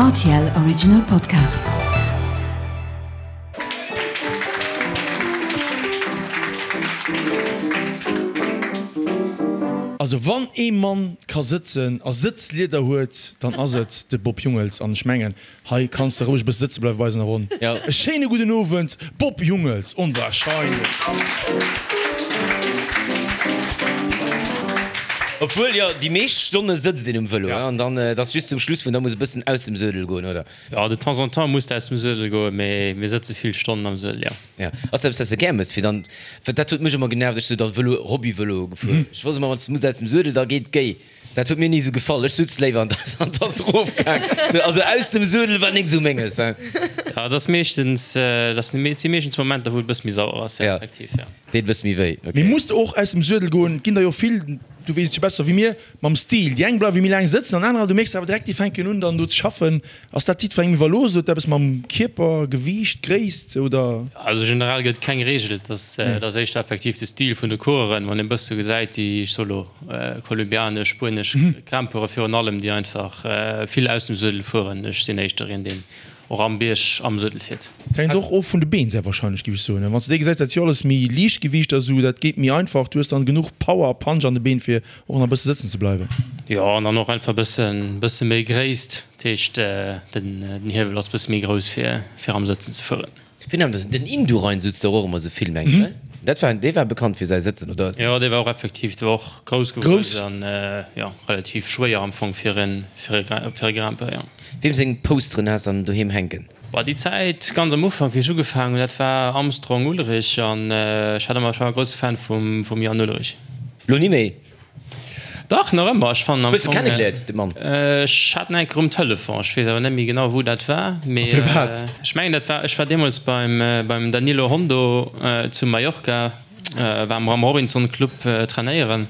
Rtl Original Podcast. Also wann ee Mann ka sëtzen a Sëtzlieder huet, dann ass et de Bob Jungels. An ech mengen, Hei kanns de roueg e bësse sëtze bleiwe bei eis an der Ronn. E schéine gudden Owend, Bob Jungels, onwahrscheinlech! Obwuel, jo, déi meescht Stonne sëtzt een um Vëlo, an dann, et ass just zum Schluss, wou en da muss e bëssen aus dem Suedel goen, oder? Jo, de temps en temps muss de aus dem Suedel goen, mee mir sëtze vill Stonnen am Suedel, jo. Jo. Ass dat eppes, wat s de gär mëss, fir dann, well dat huet mech ëmmer genervt, ech sou da Vëlo, Hobby-Vëlo gefuer, ech wosst ëmmer, wann s de muss aus dem Suedel, da geet d'Géi. Dat huet mir ni sou gefall. Ech sutz léiwer an an t'ass rofgaang. Sou, also aus dem Suedel war nik sou menges, hein. Ja, dat ass meeschtens, dat si meeschtens Momenter, wou et e bësse méi sauer ass, ja, effektiv, ja. Deet e bësse méi wéi, ok. Mee muss de och aus dem Suedel goen? Et ginn der jo vill, du weess et jo besser wéi mir, mam Stil. Déi eng bleiwe méi laang sëtzen an anerer, du mierks awer direkt, déi fänken un dann do ze schaffen. Ass dat jiddwerengem iwwerlooss oder huet dat eppes mam Kierper, Gewiicht, Gréisst oder? Also generell gëtt et keng Reegel, et ass et ass éischter effektiv de Stil vun de Coureuren, wann een e bësse gesäit, déi, ech soe lo, kolumbianesch, spuenesch Grimpeure virun allem, déi einfach vill aus dem Suedel fueren. Ech sinn éischter een, deen och am Bierg am Suedel fiert. Dat hänkt och of vun de Been sehr wahrscheinlech, géif ech soen. Wann s de déi gesäis, dat si jo alles méi Liichtgewiichter esou, dat geet méi einfach, du hues dann genuch Power a Punch an de Been fir Och nach bësse sëtzen ze bleiwen. Jo, an dann och einfach bëssen, bësse méi Gréisst, dat heescht den, den Hiewel ass bësse méi grouss fir, fir am Sëtzen ze fueren. Wien hat den Indurain sutz der och ëmmer sou vill mengen ech, dat war, dee war bekannt fir säi Sëtzen, oder? Jo, dee war och effektiv, dee war och grouss gewuess an jo relativ schwéier am Fong fir en, fir e, fir e Grimpeur, jo. Weem seng Posteren has dann doheem hänken? Boah, déi Zäit ganz am Ufank wéi ech ugefaangen hunn, dat war Armstrong Ullrich an ech hat ëmmer, ech war e grousse Fan vum, vum Jan Ullrich. Lo ni méi? Dach, nach ëmmer. Ech fannen am Hues de Fong. kennegeléiert, de Mann? Ech hat en eng Kéier um Telefon, ech weess awer net méi genau wou dat war, mee A firwat? ech mengen dat war, ech war deemools beim, beim Danilo Hondo zu Mallorca, war mer am Robinson Club trainéieren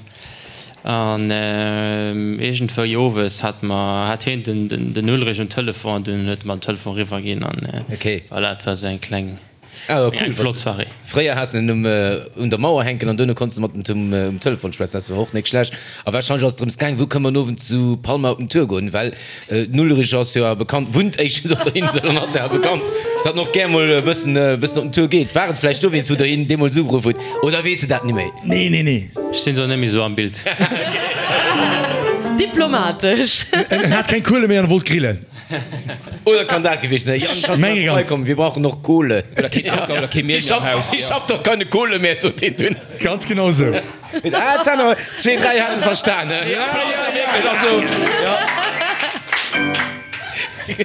an iergendwéi owes hat mer, hat heen den, den Ullrich um Telefon an dunn huet e mer den Telefon eriwwer ginn an voilà, et war esou eng kleng. Ah, cool. Eng flott Soirée. Fréier has de en um, un der Mauer hänken an duerno konns de mat em um Telefon schwätzen. Dat war och nik schlecht. A warscheinlech ass et drëms gaang, wou kënne mer en Owend zu Palma op den Tour goen, well den Ulrich ass jo awer bekannt, wunnt éischtens op der Insel an ass jo awer bekannt, datt en och gär mol e bëssen, e bëssen op den Tour geet. War et vläicht dowéinst, wou der hien deemools ugeruff hutt, oder weess de dat ni méi? Nee, nee, nee. Ech sinn do net méi sou am Bild. Diplomatesch. En hat keng Kuele méi an e wollt grillen. Oder kann dat gewiescht sinn? Jan, kannst du mal vorbeikommen? Wir brauchen noch Kohle. Oder kee Zocker oder kee Miel mehr am Haus. Ich hab doch keine Kohle mehr, sot deen dunn. Ganz genau sou. Ah, et hat awer zwee, dräi haten verstan, he? Ja, ja, also, ja.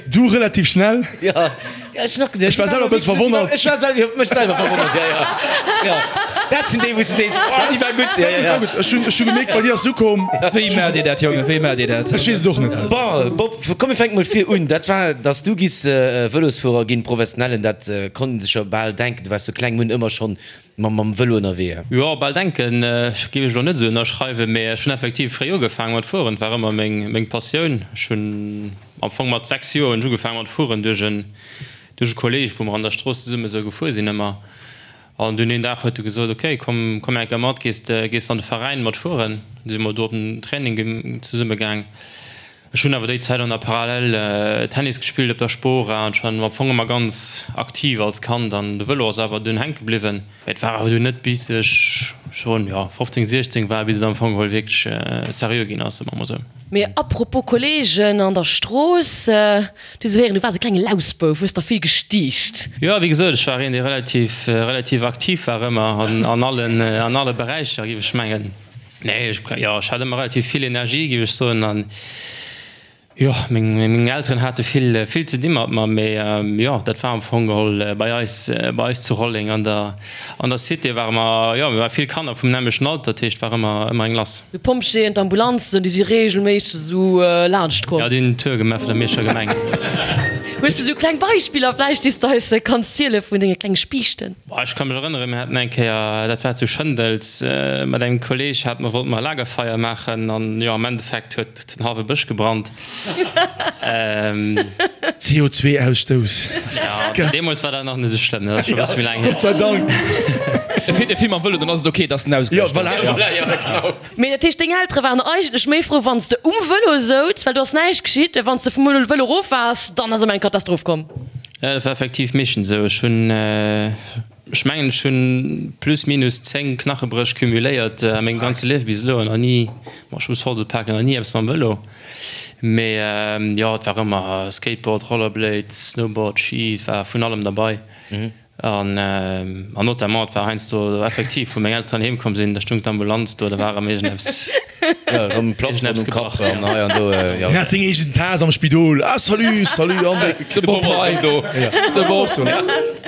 Du relativ schnell. Ja. Ja, ech nach geduecht. Ech war selwer e bësse verwonnert. Ech war selwer, ech mech selwer verwonnert, ja, ja. Ja. Dat sinn déi, wou s du sees, oh, déi war gutt. Ja, ja, ja. Ech hunn, ech hu gemierkt, bei dir ass se ukomm. Wéi maacht Dir dat, Jongen? Wéi maacht Dir dat? Ech weess et och net. Bon, Bob, komm mir fänke mol vir un. Dat war, dass du giffs Vëlosfuerer ginn, professionellen, dat konnt een sech jo bal denken. Du waars sou kleng, mir hunn ëmmer schonn mam, mam Vëlo ënnerwee. Jo, bal denken géif ech elo net esou ënnerschreiwen, mee ech hunn effektiv fréi ugefaangen mat fueren. Et war ëmmer meng, meng Passioun. Ech hunn Am Fong mat 6 Joer hunn ech ugefaangen mat fueren duerch en duerch e Kolleg, wou mer an der Strooss zesumme sou gefuer sinn ëmmer. An dunn een Dag huet e gesot, ok komm komm eng Kéier mat, gees de gees an de Veräin mat fueren. Du si mer do op den Training zesumme gaang. Ech hunn awer déi Zäit an der Parallel Tennis gespillt op der Spora an ech war am Fong ëmmer ganz aktiv als Kand an de Vëlo ass awer dunn hänke bliwwen. Mee et war awer dunn net bis ech schonn jo 15, 16 war, bis et am Fong geholl wierklech seriö ginn ass, soe mer mol sou. Mee apropos Kollegen an der Strooss, du sou héieren, du waars e klenge Lausbouf, hues der vill gestiicht. Jo, wéi gesot, ech war een, dee relativ, relativ aktiv war ëmmer an, an allen, an alle Beräicher, géif ech mengen. Nee, ech, jo, ech hat ëmmer relativ vill Energie, géif ech soen, an Jo, meng Elteren hate vill vill ze di mat mer, mee jo, dat war am Fong geholl bei eis bei eis zu Rolleng an der an der Cité ware mer, jo, mir ware vill Kanner vum nämmlechten Alter, dat heescht war ëmmer ëmmer eng lass. D'Pompjeeën, d'Ambulanzen, déi si reegelméisseg esou laanscht komm. Jo, déi hunn den Tour gemaach vun der Mierscher Gemeng. Hues de esou kleng Beispiller vläicht, déi s de eis kanns ziele vun denge klenge Spiichten? Boah, ech ka mech erënneren, mir haten eng Kéier, dat war zu Schëndels, mat engem Kolleg hate mer, wollte mer e Lagerfeier maachen an jo, am Endeffekt huet Den halwe Bësch gebrannt. CO2 Ausstouss. Ja, deemools war dat nach net esou schlëmm, dat ass scho e bësse méi laang hier. Gott sei Dank. E fiert e vill mam Vëlo, dann ass et ok, dass en ausgeläscht ass. Jo, voilà. Jo, genau. Mee dat heescht, deng Eltere waren eigentlech méi frou, wann s de um Vëlo souz, well do ass näischt geschitt, mä wann s de vum Vëlo erof waars, dann ass ëmmer eng Katastroph komm. Jo, dat war effektiv meeschtens esou. Ech hunn, ech mengen, ech hunn plus minus 10 Knachebréch cumuléiert a mengem ganze Liewe bis elo an nach ni, bon, ech muss voll paken, nach ni eppes mam Vëlo. Mee jo, et war ëmmer Skateboard, Rollerblade, Snowboard, Ski, et war vun allem derbei. An notamment, et war heiansdo effektiv, wou meng Elteren heem komm sinn, da stung d'Ambulanz do, da war erëm iergendeppes, iergendeppes gebrach. Hien hat seng eegen Taass am Spidol. Ah, salut, salut, André. De Bob ass erëm do. De Bob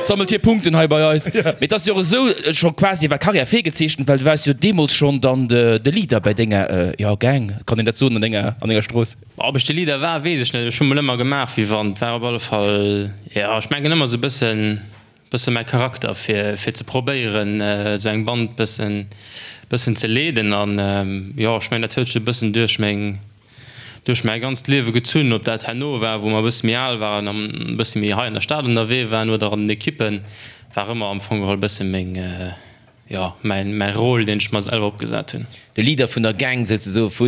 sammelt hir Punkten hei bei eis. Mee et ass jo och esou scho quasi war Karriär virgezeechent, well du waars jo deemools schonn dann de Leader bei denger, jo, Gang, kann een dat soen, an denger, an denger Strooss. Ob ech de Leader war, weess ech net. Ech hu mol ëmmer gemaach, wéi wann. Et war op alle Fall, jo, ech mengen ëmmer esou e bëssen, bësse mäi Charakter, fir, fir ze probéieren, esou eng Band bëssen, bëssen ze leeden. An, jo, ech mengen, dat huet sech e bëssen duerch meng, duerch mäi ganzt Liewe gezunn. Ob dat herno war, wou mer e bësse méi al waren an e bësse méi hei an der Stad ënnerwee waren oder an den Ekippen, war ëmmer am Fong geholl e bësse meng, Jo, mäin mäi Rôle, deen ech mer selwer opgesat hunn. De Leader vun der Gang souzesoe vu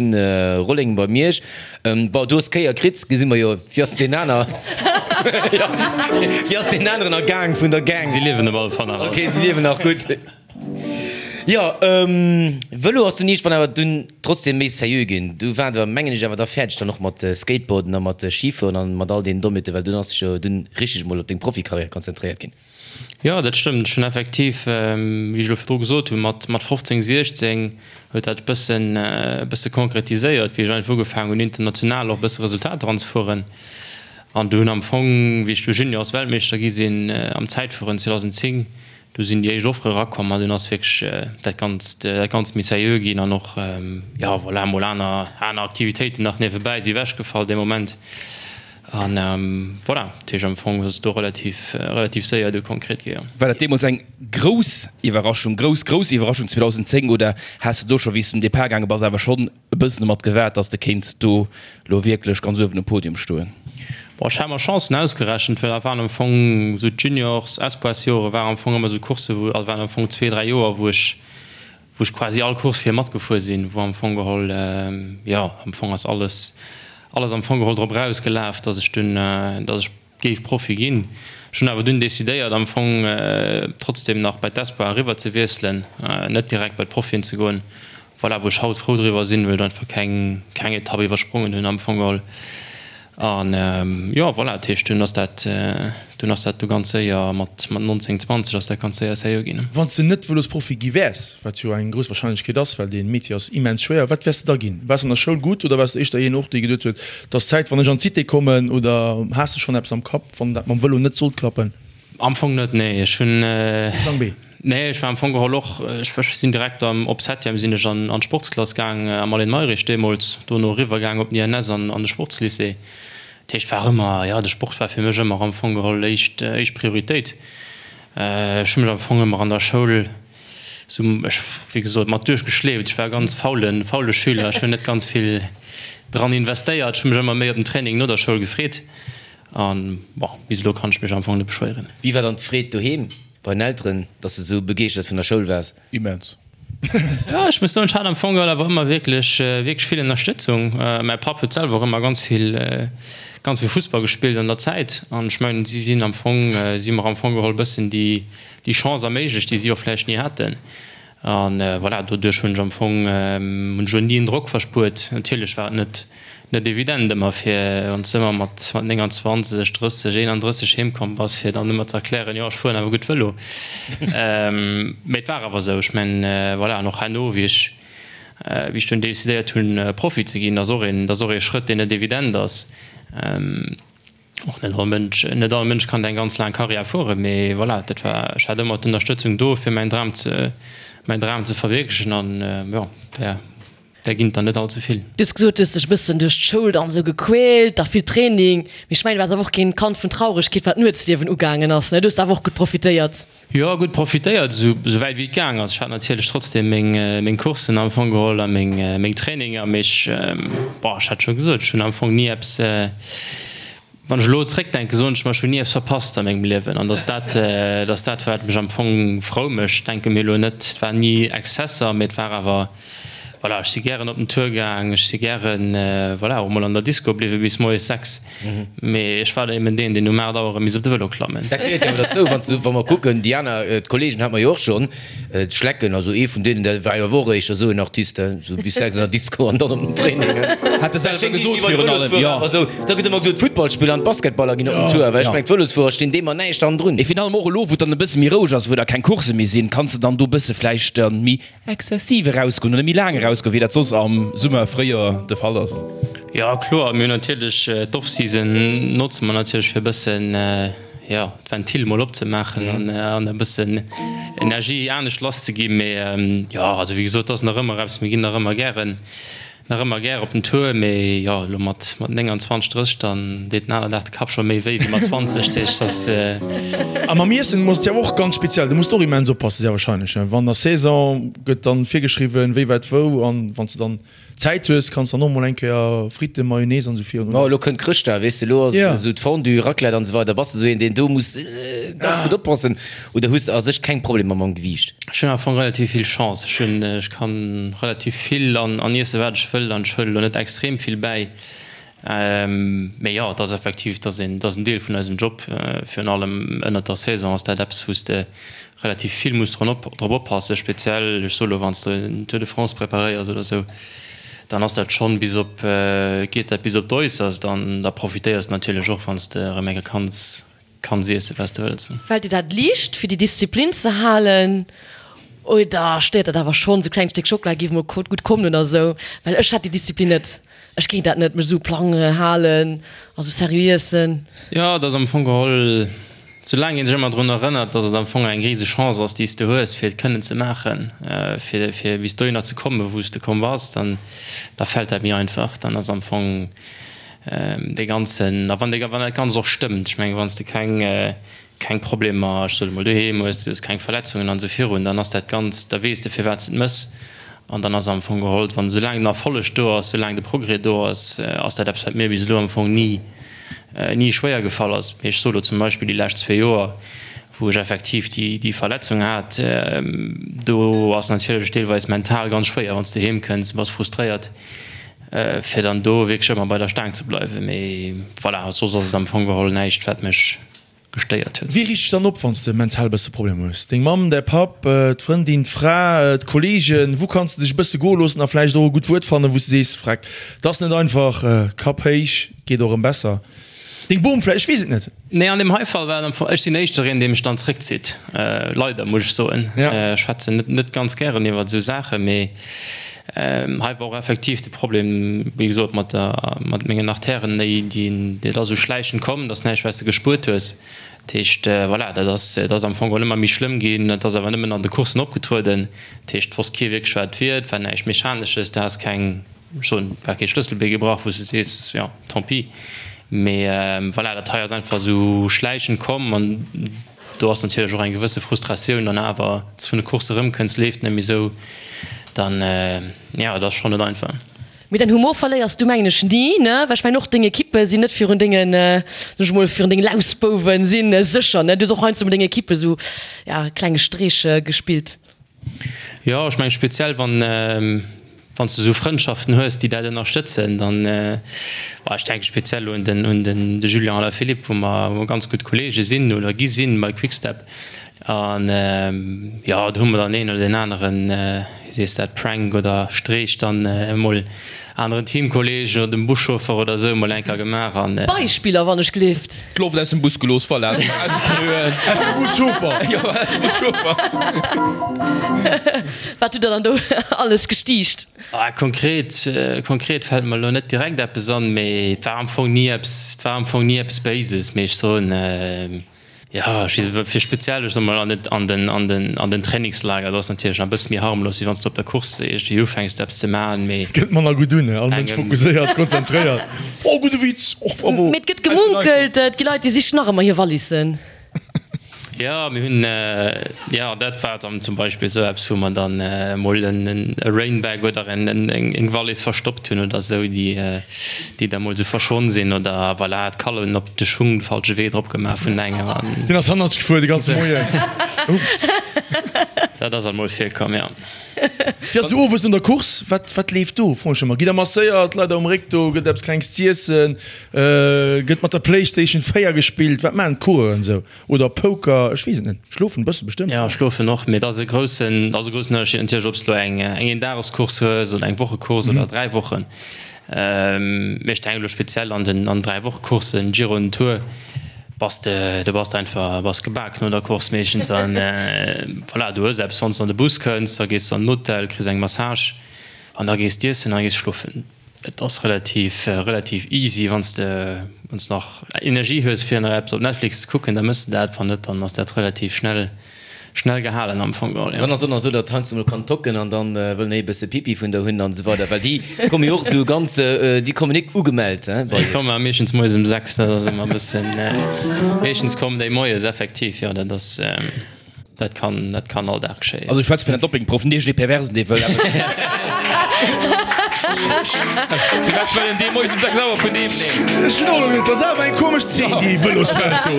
Rolleng bei Miersch. Bon, du hues d'Kéier kritt, gesi mer jo. Wéi ass deen aner? Jo, wéi ass deen aneren ergaang vun der Gang? Si liewen op alle Fall nach all. Ok, si liewen nach, gutt. Jo, Vëlo ass dunn iergendwann awer dunn trotzdem méi sérieux ginn. Du waart awer, mengen ech, awer da fäerdeg dann och mat Skateboarden a mat Schifueren an mat all deenen Dommheeten, well dunn ass dech jo dunn richteg mol op deng Profikarriär konzentréiert ginn. Jo, dat stëmmt. Ech hunn effektiv, wéi ech elo virdru gesot hunn, mat 15, 16 huet dat bëssen, bësse konkretiséiert, wéi ech einfach ugefaangen hunn, international och e bësse Resultater anzefueren. An du hunn am Fong, wéi ech du Juniors-Weltmeeschter gi sinn am Zäitfueren 2010, du sinn déi éischt Offere erakomm an dunn ass wierklech dat Ganzt, dat Ganzt méi seriö ginn an och, jo, voilà, mol aner, aner Aktivitéiten nach niewebäi si ewechgefall dee Moment. An voilà, dat heescht am Fong ass et do relativ, relativ séier du konkret gi, jo. War dat deemools eng grouss Iwwerraschung, grouss, grouss Iwwerraschung 2010 oder has de do scho wéi s du um Depart gaange bass awer schonn e bëssen domat gewaart, datt s de kéints do lo wierklech ganz uewen um Podium stoen? Bon, ech hat mer Chancen ausgerechent, well dat waren am Fong esou d'Juniors-, Espoirs-Jore waren am Fong ëmmer esou Coursse wou, also waren am Fong zwee, dräi Joer wou ech, wou ech quasi all Course fir matgefuer sinn, wou am Fong geholl, jo, am Fong ass alles, alles am Fong geholl drop erausgelaf, dass ech dunn, dass ech géif Profi ginn. Ech hunn awer dunn decidéiert am Fong trotzdem nach bei d'Espoir eriwwer ze wiesselen, net direkt bei d'Profien ze goen, voilà, wou ech haut frou driwwer sinn, well ech einfach keng, keng Etapp iwwersprongen hunn am Fong geholl. An jo, voilà, dat heescht, dunn ass dat, dunn ass dat du ganz séier mat 19, 20 ass dat ganz séier seriö ginn. Wann s de net Vëlosprofi gi wäers, wat jo eng grouss Warscheinlechkeet ass, well dee Métier ass immens schwéier, wat wäers de da ginn? Waars de an der Schoul gutt oder waars de éischter een och, dee geduet huet, et ass Zäit, wann ech an d'Cité kommen? Oder has de schonn eppes am Kapp, wann dat mam Vëlo net sollt klappen? Am Fong net, nee. Ech hunn. Plan B? Nee, ech war am Fong geholl och, ech sinn direkt am, op Septième sinn ech an an d'Sportsklass gaang am Aline Mayrisch deemools, dono eriwwer gaang op den INS an an de Sportslycée. Dat heescht, war ëmmer, jo, de Sport war fir mech ëmmer am Fong geholl éischt, éischt Prioritéit. Ech hu mech am Fong ëmmer an der Schoul sou, ech, wéi gesot, mat duerchgeschleeft. Ech war e ganz faulen, faule Schüler, ech hunn net ganz vill dran investéiert, ech hu mech ëmmer méi op den Training no der Schoul gefreet an, bon, bis elo kann ech mech am Fong net beschwéieren. Wéi war dann d'Freed doheem? Bei den Elteren, dass de sou begeeschtert vun der Schoul waars? Immens. Jo, ech muss soen, ech hat am Fong awer ëmmer wierklech, wierklech vill Ënnerstëtzung. Mäi Papp huet selwer och ëmmer ganz vill, ganz vill Fussball gespillt an der Zäit. An ech mengen, si sinn am Fong, si hu mer am Fong geholl e bëssen déi, déi Chance erméiglecht, déi si och vläicht ni haten. An voilà, doduerch hunn ech am Fong, hunn ech elo ni en Drock verspuert. Natierlech war et net, net evident ëmmer fir, wann s de ëmmer mat 29, 30, 31 heem komm bass, fir dann ëmmer ze erklären, jo ech fueren awer gutt Vëlo. Mee et war awer esou. Ech mengen, voilà, an och herno, wéi ech, wéi ech dunn decidéiert hunn, Profi ze ginn, dat ass och een, dat ass och ee Schrëtt, deen net evident ass. Och net all Mënsch, net all Mënsch kann eng ganz laang Karriär fueren, mee voilà, dat war, ech hat ëmmer d'Ënnerstëtzung do, fir mäin Dram ze, mäin Dram ze verwierklechen an jo, där, där ginn et der net all ze vill. Du hues gesot, du hues dech e bëssen duerch d'Schoul dann esou gequält, da vill Training, mee ech mengen, du waars awer och keen Kand vun Trauregkeet, wat d'Nuetsliewen ugaangen ass, ne? Du hues awer och gutt profitéiert. Jo, gutt profitéiert, esou wäit wéi et gaang ass. Ech hat natierlech trotzdem meng Coursen am Fong geholl a meng Traininger, mee ech, bon, ech hat scho gesot, ech hunn am Fong ni eppes. Wann ech elo zréckdenken, soen ech mer, ech hunn ni eppes verpasst a mengem Liewen. An dass dat, dass dat wat mech am Fong frou mécht. Ech denke mir elo net, et waren ni Exzesser, mee et war awer, voilà, ech si gären op den Tour gaang, ech si gären, voilà, och mol an der Disco bliwwe bis moies 6. Mee ech war eben deen, deen um 8 Auer erëm misst op de Vëlo klammen. Dat gehéiert jo awer derzou, wann s du, wa mer kucken, déi aner, d'Kollegen hate mer jo och schonn, d'Schlecken, also ee vun deenen, dat war jo awer och éischter esou en Artiste, esou bis 6 an der Disco an dann op den Training. Hat e selwer gesot virun allem, jo. Esou, da gëtt ëmmer gesot, d'Futtballspiller an d'Basketballer ginn op den Tour, well ech mengen, d'Vëlosfuerer stinn deem an näischt hannendrun. Mee virun allem och elo, wou et dann e bësse méi roueg ass, wou da keng Coursse méi sinn, kanns de dann do e bësse vläicht dann méi Exzessiv erausgoen oder méi laang erausgoen, wéi dat soss am Summer, Fréijoer de Fall ass? Jo, kloer. Mir hunn natierlech d'Off-Season notze mer natierlech fir e bëssen, jo, d'Ventil mol opzemaachen an an e bëssen Energie anescht lasszeginn. Mee jo, also wéi gesot, et ass nach ëmmer eppes, mir ginn nach ëmmer gären Nach ëmmer gär op den Tour, mee jo, elo mat 29, 30, dann deet den aner Dag de Kapp scho méi wéi wéi mat 20, dat heescht, dass. A mam Iessen muss et jo och ganz speziell, do muss de och immens oppassen, sehr wahrscheinlech, wann der Saison gëtt dann virgeschriwwen, wéi wat wou, an wann s de dann Zäit hues, kanns dann och mol eng Kéier Fritten, Mayonnaise an esou virun. Ma elo kënnt Chrëschtdag, weess de, elo ass esou d'Fondue, Raclette an esou weider, bass de esou een, deen do muss ganz gutt oppassen oder hues de a sech keng Problemer mam Gewiicht? Ech hunn am Fong relativ vill Chance. Ech hunn, ech kann relativ vill an an iessen, wat ech wëll, an ech huelen elo net extrem vill bäi. Mee jo, et ass effektiv, et ass een, et ass en Deel vun eisem Job. Virun allem ënnert der Saison ass dat eppes, wou s de relativ vill muss drun op, drop oppassen. Speziell, ech soe lo, wann s de en Tour de France preparéiers oder esou, dann ass dat schonn bis op, geet dat bis op d'Äusserst an da profitéiers de natierlech och, wann s de erëm eng Kéier kanns Kanns iessen wat s de wëlls. Fällt dir dat liicht fir déi Disziplin ze halen oder stéiert dat awer schonn? Sou klengt Stéck Schockela géif mol gutt kommen oder sou, well ech hätt déi Disziplin net. Ech kéint dat net, mech sou Plang halen a sou seriö iessen. Jo, et ass am Fong geholl, soulaang een sech ëmmer drun erënnert, dass et am Fong eng rise Chance ass, déi s de hues, fir et kënnen ze maachen, fir fir bis dohinner ze kommen, wou s de komm bass, dann da fält dat méi einfach. Dann ass am Fong Dee ganzen, a wann dee, wann dat Ganzt och stëmmt, ech mengen, wann s de keng, keng Problemer, ech soe mol, doheem hues, du hues keng Verletzungen an esou virun, dann ass dat Ganzt, da weess de firwat s de et méchs an dann ass am Fong geholl, wann soulaang den Erfolleg do ass, soulaang de Progrès do ass, ass dat eppes wat mir bis elo am Fong ni, ni schwéier gefall ass. Mee ech soe lo zum Beispill déi lescht zwee Joer, wou ech effektiv déi, déi Verletzung hat, do ass natierlech deelweis mental ganz schwéier, wann s de heem kënns, bass frustréiert, fir dann do wierklech ëmmer bei der Staang ze bleiwen. Mee voilà, soss ass et am Fong geholl näischt, wat mech gestéiert huet. Wie riicht dech dann op, wann s de mental e bësse Problemer hues? Deng Mamm, däi Papp, d'Frëndin, d'Fra, d'Kolleegen? Wou kanns de dech e bësse goe loossen a vläicht och e gutt Wuert fannen, wou s de sees, Freck, 't ass net einfach, Kapp héich, geet och erëm besser. Deng Bom vläicht, ech weess et net. Nee, an deem hei Fall war et am Fong, ech sinn éischter een, dee mech dann zréckzitt, leider, muss ech soen. Ech schwätzen net net ganz gären iwwert esou Saachen, mee hei war och effektiv de Problem, wéi gesot, mat der, mat mengen Artèren, déi, déi, dat ass esou schläichend komm, dat ass näischt, wat s de gespuert hues. Dat heescht, voilà, dat ass, dat ass am Fong geholl ëmmer méi schlëmm ginn, dat ass awer nëmmen an de Courssen opgetrueden. Dat heescht, et wosst kee wierklech, wat et wier, et war näischt Mechanesches, du has keng. Ech soen, et war kee Schlësselbee gebrach, wou s de sees, jo, tant pis. Mee voilà, dat hei ass einfach esou schläichend komm an do ass natierlech och eng gewësse Frustratioun dann awer, s de vun de Coursse erëmkënns, leeft net méi esou, dann, jo, et ass schonn net einfach. Mee däin Humor verléiers du mengen ech ni, ne? Well ech mengen och deng Ekippe sinn net virun dengen, soen ech mol, virun dengen Lausbouwen si sécher, ne? Du hues och heiansdo mat denger Ekippe esou, ja, klenge Streech gespillt. Jo, ech mengen speziell wann wann s de esou Frëndschaften hues, déi dat ënnerstëtzen, dann, bon, ech denke speziell un den un den de Julian Alaphilippe, wou mer wou mer ganz gutt Kollege sinn oder gi sinn bei Quick-Step. An jo, do hu mer dann een oder deen aneren, wéi sees dat, Prank oder Streech dann emol aneren Teamkolleegen oder dem Buschauffer oder esou mol eng Kéier gemaach an. Beispiller wann ech gleeft. D'Loft aus dem Bus gelooss, voilà. Aus de Pneuen. Aus dem Buschauffer. Jo, aus dem Buschauffer. Wat hutt der dann do alles gestiicht? Ah, konkret, konkret fält mer elo net direkt eppes an, mee et war am Fong ni eppes, et war am Fong ni eppes Béises, mee ech soen, Jo, ech weess net, fir speziell, ech soe mol, an den, an den, an den, an den Trainingslager, do ass natierlech nach e bësse méi harmlos, wéi wann s de op der Course iergendwéi ufänks eppes ze maachen, mee. Gëtt manner gutt un, all Mënsch fokusséiert, konzentréiert. Oh, gudde Witz, och bravo. Mee et gëtt gemunkelt, et gi Leit, déi sichen nach ëmmer hir Wallissen. Jo, mir hunn, jo, dat war dann zum Beispill esou eppes, wou mer dann emol e Rainbag oder eng Wallis verstoppt hunn oder esou, déi déi da mol esou verschwonn sinn oder voilà, d'Kallen op de Schung de falsche Wee drop gemaach vun engem an. Deen ass hannertsch gefuer de ganze Moien. Dat ass alt mol virkomm, jo. Wéi ass esou owes no der Course? Wat wat leeft do? Froen ech ëmmer. Gitt der masséiert, leit der um Réck do, gëtt eppes klengs z'iessen, gëtt mat der Playstation 4 gespillt? Wat maachen d'Coureuren esou? Oder Poker, ech weess et net. Schlofen e bësse bestëmmt. Jo, schlofen och, mee et ass e groussen, ass e groussen Ënnerscheed natierlech, ob s de elo eng eng Eendagescourse hues oder eng Wochecourse oder 3 Wochen. Mee ech denken elo speziell an den an 3 Wochecoursen, Giro an Tour, bass de, du bass einfach, bass gebak no der Course meeschtens an voilà, du hues eppes, wann s de an de Bus kënns, da gees de an den Hotel, kriss eng Massage an da gees d'iessen a gees schlofen. Et ass relativ relativ easy, wann s de wann s nach Energie hues fir nach eppes op Netflix ze kucken, da mëss de dat, wann net, dann ass dat relativ schnell schnell gehalen am Fong geholl, jo. Dann ass och nach esou, datt heiansdo mol kann tocken an dann wëllen déi e bësse Pipi vun der hunn an esou weider, well déi komme jo och esou ganz, déi kommen nik ugemellt he bei Déi iech. komme meeschtens moies um 6, dat ass ëmmer e bëssen, meeschtens kommen déi moies effektiv, jo, dat ass. Dat kann, dat kann all Dag geschéien. Also ech schwätze vun den Doppingproffen, net iergendee Perversen, dee wëll eppes. Firwat wëll en dee moies um 6 Auer vun deem? Ech hunn och elo geduecht, dat ass awer eng komesch Zeen, déi Vëloswelt do.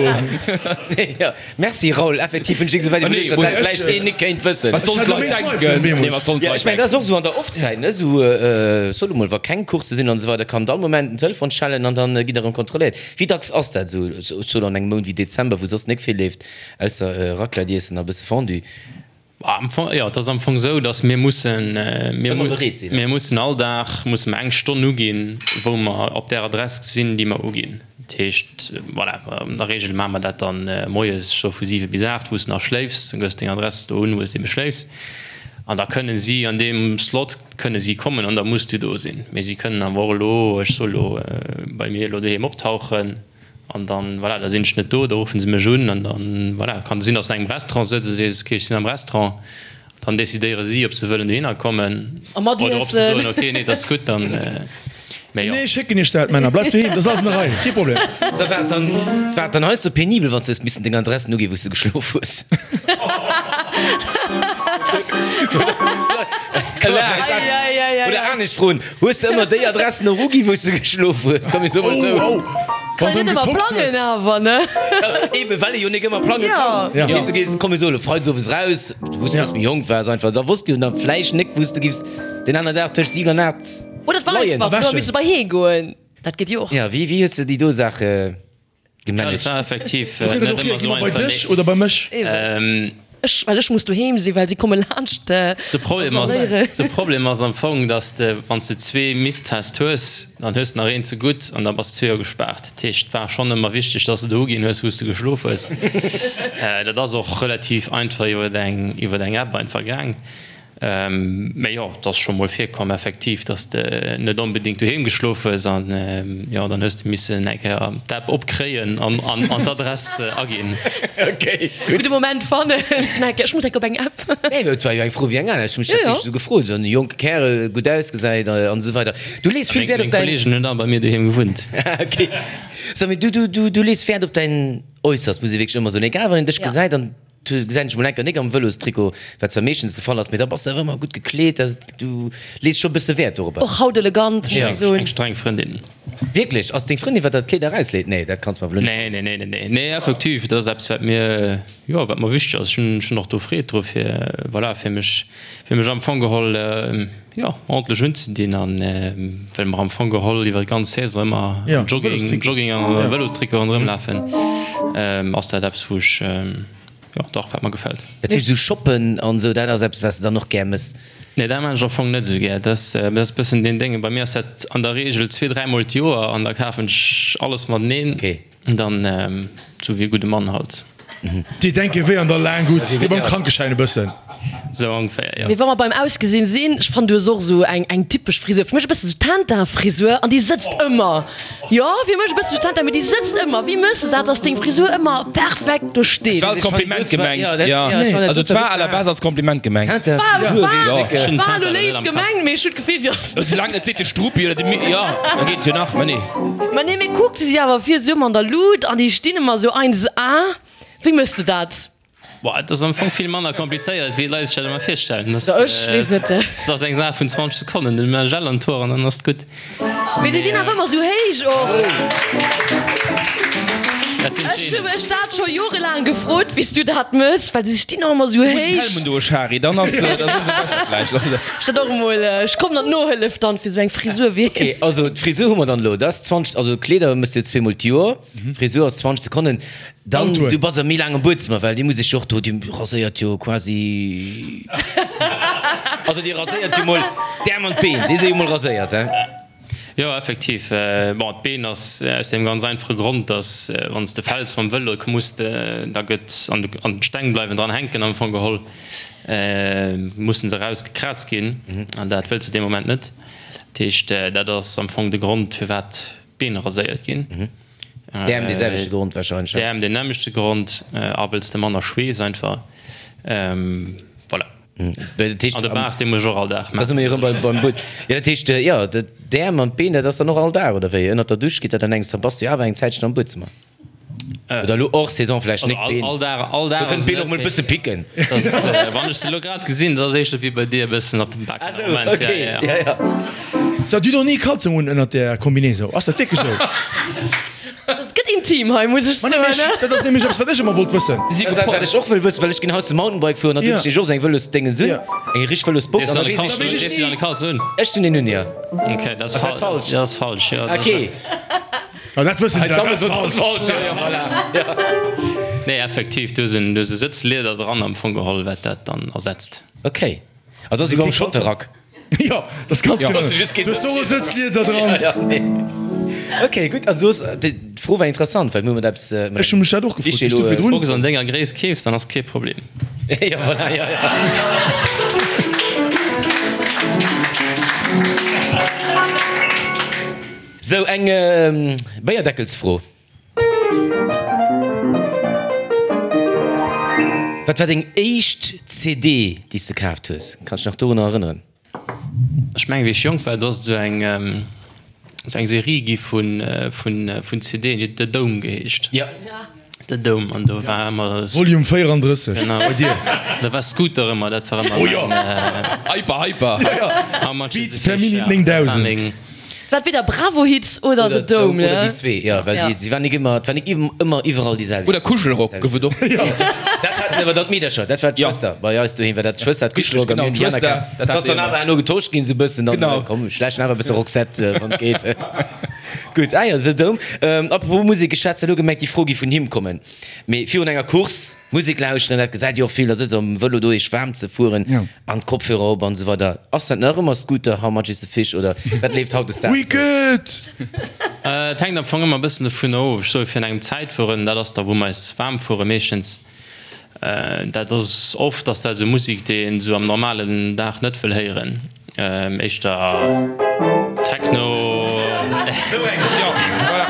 Jo, merci Raoul, effektiv hunn ech esou wäit iwwerluecht, datt dat vläicht een nik kéint wëssen. Wat sollen d'Leit denken? Nee, wat sollen Jo, d'Leit ech mengen, dat denken? ass och esou an der Off-Zäit, ne, esou, sot emol, wa keng Coursse sinn an esou weider, kann all Moment den Telefon schellen an dann gitt der erëm kontrolléiert. Wéi dacks ass dat esou, sot an engem Mount wéi Dezember, wou soss nik vill leeft? Ausser Raclette iessen a bësse Fondue. Am Fong, jo, et ass am Fong esou, datt mir mussen, mir Ëmmer bereet sinn. mir mussen all Dag musse mer eng Stonn uginn, wou mer op där Adress sinn, déi mer uginn. Dat heescht, voilà, an der Regel maache mer dat dann moies scho vu 7 bis 8, wou s de nach schléifs. Dann gëss deng Adress do un, wou s de ebe schléifs. An da kënne si an deem Slot kënne si kommen an da muss du do sinn. Mee si kënnen awer och elo, ech soe lo, bei mir elo doheem optauchen. An dann, voilà, da sinn ech net do, da ruffen se mech un an dann, voilà, kann et sinn, dass de an engem Restaurant sëtz a sees, ok, ech sinn am Restaurant. Dann decidéiere si, ob se wëllen dohinner kommen A mat oder ob se iessen. soen, ok, nee, dat ass gutt, dann, mee jo. Nee, ech schécken iech dat, Männer, bleift doheem, dat ass alles an der Rei, kee Problem. So, war et dann, war et dann hei sou penibel, wann s du hues missen deng Adressen uginn, wou s du geschlof hues? Oder anescht froen, Hues de ëmmer déi Adressen och ugi wou s de geschlof hues? Komm mir soe mol esou. Oh, oh. Kann een net ëmmer plangen awer, ne? Eben, well ee jo nik ëmmer plange kann. Ja. Weess du, gees, komm mir soe lo freides owes raus, wou s du méi jonk waars einfach, da wosst du jo dann vläicht nik wou s de giffs deen aner Dag tëscht 7 an 8 Oder et war leien. einfach, du hues misse bei hee goen. Dat geet jo och. Ja, wéi, wéi hues de déi do Saach gemanagt? Ja, dat war effektiv Do kritt net et och ëmmer hier, esou gi mer bei einfach, dech nee. oder bei mech? Eben. Ech, well ech muss doheem sinn, well si komme laanscht De Problem ass, rasalieren. de Problem ass am Fong, dass de, wann s de zwee Misstest hues, dann hues de nach een ze gutt an da bass de zwee Joer gespaart. Dat heescht, et war schonn ëmmer wichteg, dass de do uginn hues, wou s de geschlof hues. Dat ass och relativ einfach iwwer eng, iwwer eng App einfach gaang. Mee jo, et ass scho mol virkomm effektiv, dass de net onbedéngt doheem geschlof hues an jo, dann hues de missen eng Kéier d'App opkréien an d'Adress aginn. Ok, gutt. Gudde Moment fannen, ech muss enk op eng App. Nee, mee et war jo eng Fro wéi eng aner. Ech hu mech dat wierklech esou gefrot, esou en jonke Kärel, gutt ausgesäit an esou weider. Du lees vill Wäert op Meng däin. Kolleegen hunn all bei mir doheem gewunnt. Ok. So, mee du, du, du lees Wäert op däin Äusserst, muss ee wierklech ëmmer soen. Egal, wann een dech gesäit an. Du gesäit dech mol enker nik am Vëlostrikot, wat zwar meeschtens de Fall ass, mee da bass de awer ëmmer gutt gekleet, also du lees scho bësse Wäert dorobber. Och haut elegant, muss ech soen. Eng streng Frëndin. Wierklech? Ass deng Frëndin, wat der d'Kleeder erausleet? Nee, dat kanns mer wuel net. Nee, nee, nee, nee, nee, nee, effektiv, dat ass eppes, wat mir, jo, wat mer wichteg ass. Ech hunn, ech hunn och do Freed dru fir, voilà, fir mech, fir mech am Fong geholl, jo, ordentlech unzedinn an well mer am Fong geholl iwwer d'ganz Saison ëmmer am Jogging, Jogging an Vëlostrikot ronderëm lafen, ass dat eppes, wou ech, jo, dach, wat mer gefält. Dat heescht, esou shoppen an esou, dat ass eppes, wat s de dann och gär mëss? Nee, dat maan ech am Fong net esou gär. Dat ass e bëssen deen Dénge. Bei mir ass dat an der Reegel zwee, dräimol d'Joer an da kafen ech alles mateneen. Dann sou wéi e gudde Mann halt. Déi denke wéi an der Laang gutt, wéi beim Krankeschäin e bëssen. Sou ongeféier, jo. Mee wa mer beim Ausgesinn sinn, ech fannen du hues och sou eng eng typesch Frisur, fir mech e bëssen sou Tintin-Frisur an déi sëtzt ëmmer. Jo, fir mech e bëssen sou Tintin, mee déi sëtzt ëmmer. Wéi mëss de dat, dass deng Frisur ëmmer perfekt do steet? Et war als Kompliment gemengt, jo. Also et war à la base als Kompliment gemengt. War war elo léif gemengt, mee ech hunn d'Gefill, si ass. Soulaang net seet de Struppi oder de Mi, jo, da geet et jo nach, mä nee. Ma nee, mee kuck, se si awer vir esou ëmmer an der Lut an déi stinn ëmmer esou 1 A. Wéi mëss de dat? Boah, et ass am Fong vill manner komplizéiert, wéi d'Leit sech dat ëmmer virstellen. Dat ech weess net. Dat ass eng Saach vun 20 Sekonnen, dann hu mer Gel an d'Hoer an dann ass et gutt. Mee se sinn awer ëmmer sou héich och. Dat sinn Ech hu d'Genen. mech dat scho jorelaang gefrot, wéi s du dat mëss, well se stinn och ëmmer sou Du muss en héich. Helm undoe Shari, dann ass dann ëmsou besser vläicht. Also. Ech dat och emol, ech kommen an d'Nohëllef dann fir sou eng Frisur, Okay, weess. also d'Frisur hu mer dann elo. Dat ass 20, also Kleeder mëss du zweemol d'Joer, Frisur ass 20 Sekonnen. Dann, du bass a méi laang am Buedzëmmer, well déi muss ech jo och do, déi raséiert jo quasi, also déi raséiert jo mol d'Äerm an d'Been, déi si jo mol raséiert, hein? Jo, effektiv. Bon, d'Been ass aus deem ganz einfache Grond, dass wann s de fäls mam Vëlo, muss de, da gëtt an d'Steng bleiwen dran hänken am Fong geholl, mussen se erausgekraazt ginn an dat wëlls de dee Moment net. Dat heescht, dat ass am Fong de Grond, firwat d'Been raséiert ginn. D'Äerm dee selwechte Grond wahrscheinlech, ne? D'Äerm deen nämmlechte Grond, a wëlls de manner Schweess einfach. Voilà. Dat heescht, An de Baart, dee muss ech och all Dag da si mer jo maachen. erëm beim But. Jo, dat heescht, jo, d'Äerm an d'Been, dat ass dann och all Dag, oder wéi? Ënnert der Dusch geet dat an engems, da bass de jo awer eng Zäitchen am Buedzëmmer. Oder elo hors Saison vläicht Also nik, all, d'Been. all Dag, all Dag Do kënnen ass d'Been et och mol e net, bësse picken. mee dat ass, wann ech se elo grad gesinn, dat ass éischter wéi bei dir e bëssen op dem Bak Ah am sou, Moment. okay, Ja, ja, ja. ja, ja. So, du hues och ni Kalzong un ënnert där Combinaison, ass dat wierklech sou? Dat gëtt intim hei, muss ech Ma soen. nämlech, dat ass nämlech eppes, wat ech ëmmer wollt wëssen. Dat ass dat, wat ech och wëll wëssen, well ech ginn haut ze Mountainbike fueren an do Ja. hunn ech och esou eng Vëlosdéngens un, Ja. eng richteg Vëlosbox Dees an du da an de weess ech Kalzong, ni. dees du an de Kalzong un? Ech hunn een un, jo. Okay, dat ass Ass dat fal, falsch? dat ass falsch, jo. Dat ass Okay. Ja, dat wëssen se, dat ass falsch. Nee, effektiv, do sinn do si Sëtzlieder dran am Fong geholl, wat dat dann ersetzt. Okay. Also ass ewéi beim Schotterrack. Jo, dat ass ganz genau. Du hues do och e Sëtzlieder dran. Ja, nee. Okay, gutt. Also du hues, d'Fro war interessant, well mir hu mat eppes. Ech hu mech dat och gefrot, wéi s du virdrun. Box an denger Gréisst keefs, dann ass kee Problem. Jo, voilà, jo, jo. Sou, eng Béierdeckelsfro. Wat war deng éischt CD, déi s de kaaft hues? Kanns dech nach dorunner erënneren? Ech mengen, wéi ech jonk war, do ass et esou eng, esou eng Serie gi vun, vun, vun CDen, déi huet The Dome geheescht. Jo. The Dome, an do war ëmmer. Volume 34 bei dir. Da war Scooter ëmmer, dat war ëmmer. Oh jo! Hyper, hyper! How much is Beats the per fish? Minute 9000. Wat weder Bravo Hits oder The Dome, ne? Oder déi zwee, jo, well déi, si waren nik ëmmer, et war nik ëmmer iwwerall déi selwecht. Oder Kuschelrock gouf et och. Dat haten awer dann d'Meedercher, dat war d'Schwëster. Bei eis doheem war dat d'Schwëster, d'Kuschelrock, Genau, an mir hunn déi aner d'Schwëster, kaf. dat Dat ass hat dann awer herno getosch ginn, sou e bëssen, dann, Genau. komm, schläichen awer e bësse Roxette, wann et geet. Gutt, ah jo, The Dome. Apropos Musek, ech hat zwar elo gemengt, déi Fro géif vun him kommen, mee virun enger Course Musek lauschteren, dat gesäit Dir och vill, da sëtzt am Vëlo do, iech waarm ze fueren an d'Kopfhörer op an esou weider. Ass dat nach ëmmer Scooter, How much is the fish oder wat leeft hautdesdaags? Wicked! Et hänkt am Fong ëmmer e bëssen dovun of. Ech soe virun engem Zäitfueren, dat ass da wou mer eis waarm fuere meeschtens. Dat ass oft ass dat esou Musek, déi een esou am normalen Dag net wëll héieren. Éischter Techno. Sou eng, jo, voilà.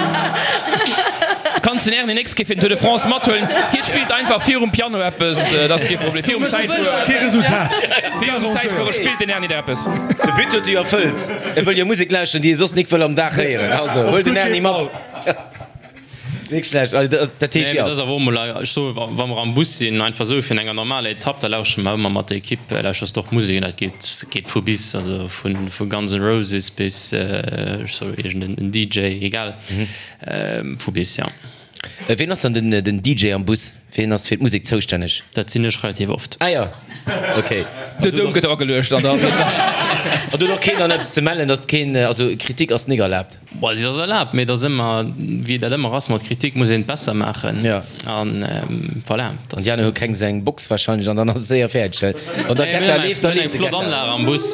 Kanns den Erny nächst Kéier fir den Tour de France mathuelen. Hie spillt einfach virum Piano eppes, dat ass kee Problem. Virum Zäitfuere. Kee Resultat. Virum Zäitfuere spillt den Erny der eppes. De But huet e jo erfëllt. E wëll jo Musek lauschteren, déi e soss nik wëll am Dag héieren. Also, huel den Erny mat. Nik schlecht. Also, dat heescht, Nee, jo. dat ass awer och mol, ech soe wa mer am Bus sinn, einfach esou fir enger normaler Etapp, da lauschtere mer ëmmer mat der Ekipp, lauschters de och Musek an dat geet, geet vu bis, also vu vu Guns N' Roses bis, ech soe iergend en DJ, egal, vu bis, jo. Ween ass dann den den DJ am Bus? Ween ass fir d'Musek zoustänneg? Dat sinn ech relativ oft. Ah jo, ok. De Doum gëtt erageluecht an dann. An do huet och keen dann eppes ze mellen, datt keen, also Kritik ass nik erlaabt? Bon, si ass erlaabt, mee et ass ëmmer, wéi dat ëmmer ass mat Kritik, muss een et besser maachen. Ja. An voilà. An déi aner hu keng esou eng Box wahrscheinlech an dann ass et séier fäerdeg, well wann der Getter leeft, da Mir hunn leeft eng de flott Getter. Anlag am Bus,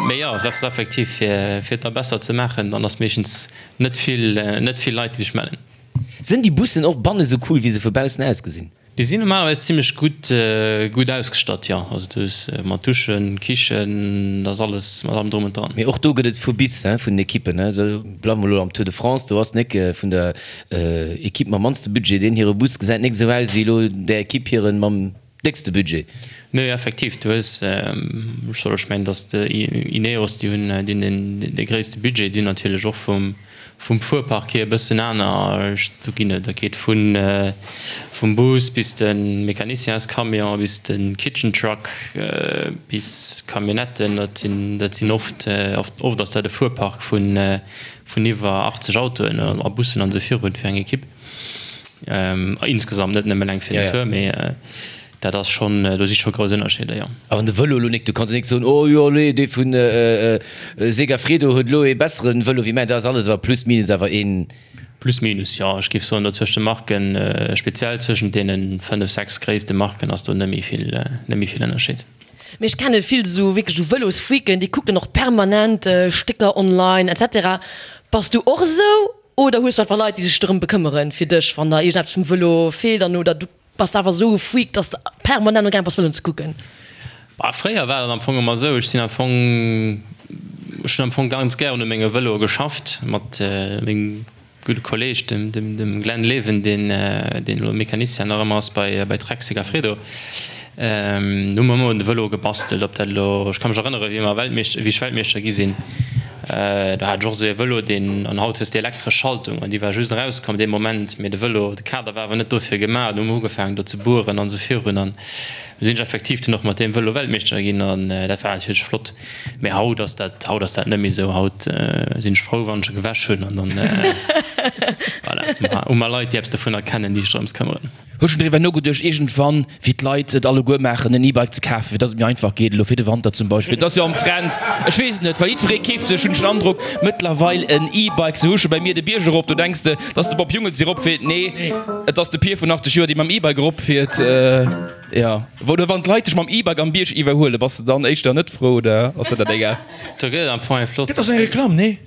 mee jo, dat ass effektiv, fir fir et da besser ze maachen, dann ass meeschtens net vill, net vill Leit, déi sech mellen. Sinn déi Bussen och banne sou cool, wéi se vu baussen ausgesinn? Déi sinn normalerweis zimlech gutt gutt ausgestatt, jo. Also du hues mat Duschen, Kichen, da ass alles mat allem drum und dran. Mee och do gëtt et vu bis, hein, vun den Ekippen, hein. Esou bleiwe mer elo am Tour de France, do ass nik vun der Ekipp mam mannste Budget, deen hire Bus gesäit nik esou aus wéi elo där Ekipp hiren mam déckste Budget. Nee, effektiv, du hues, ech soll, ech mengen, datt de Ineos, déi hunn, déi hunn deen dee gréisste Budget, déi hunn natierlech och vum. Vum Fuerpark hier e bëssen aner. Do ginn et, dat geet vun vum Bus bis de Mecanicienscamion, bis de Kitchen Truck, bis Camionnetten. Dat sinn, dat sinn oft, oft, oft ass dat e Fuerpark vun vun iwwer 80 Autoen a Bussen an esou virun fir eng Ekipp. Insgesamt, net nëmmen eng fir den Tour, mee. Dat ass schonn, do si scho grouss Ënnerscheeder, jo. A wann de Vëlo elo nik, du kanns jo nik soen, oh jo allez, dee vun Segafredo huet elo ee bessere Vëlo wéi mäin, dat ass alles awer plus minus awer een. Plus minus, jo. Ech géif soen, do zwëscht de Marken, speziell zwëschent deene 5, 6 gréisste Marken ass do net méi vill, net méi vill Ënnerscheed. Mee ech kenne vill esou wierklech esou Vëlosfreaken, déi kucken och permanent Stécker online et cetera. Bass du och esou oder hues du einfach Leit, déi sech dorëm bekëmmeren fir dech, wann der iergendeppes vum Vëlo feelt an oder du Bass de awer esou e Freak, dass de permanent amgaang bass Vëloen ze kucken? Bah, fréier war dat am Fong ëmmer esou. Ech sinn am Fong, ech hunn am Fong ganz gären u menge Vëloe geschafft mat mengem gudde Kolleeg, dem, dem, dem Glenn Leven, deen, deen elo Mecanicien nach ëmmer ass bei, bei Trek Segafredo. Do hu mer ëmmer un de Vëloe gebastelt, ob dat elo, ech ka mech erënnere wéi mer Weltmeeschter, wéi ech Weltmeeschter gi sinn, do hat ech och esou ee Vëlo, deen, an haut hues de elektresch Schaltung an déi war just erauskomm dee Moment, mee de Vëlo, de Kader war awer net dofir gemaach, do hu mer ugefaangen do ze bueren an esou virun an du sinn ech effektiv dunn och mat deem Vëlo Weltmeeschter ginn an dat war natierlech flott. Mee haut ass dat, haut ass dat net méi esou, haut sinn ech frou wann ech e gewäsch hunn an dann, voilà, hu mer Leit déi eppes dovunner kennen, déi sech drëms këmmeren. Hues schon driwwer nogeduecht iergendwann, wéi d'Leit et alleguer maachen, en E-Bike ze kafen, fir dass et méi einfach geet, elo fir de Wanter zum Beispill? Et ass jo am Trend, ech weess et net, well jiddweree keeft sech, hunn ech den Androck, mëttlerweil en E-Bike. Se husche bei mir de Bierg erop, do denks de, et ass de Bob Jungels, dee eropfiert. Nee, et ass de Pier vun 80 Joer, dee mam E-Bike eropfiert. Jo, oder wann d'Leit dech mam E-Bike am Bierg iwwerhuelen, bass de dann éischter net frou oder ass der dat egal? Do gëtt et am Fong eng flott. Dat ass eng Reklamm, nee?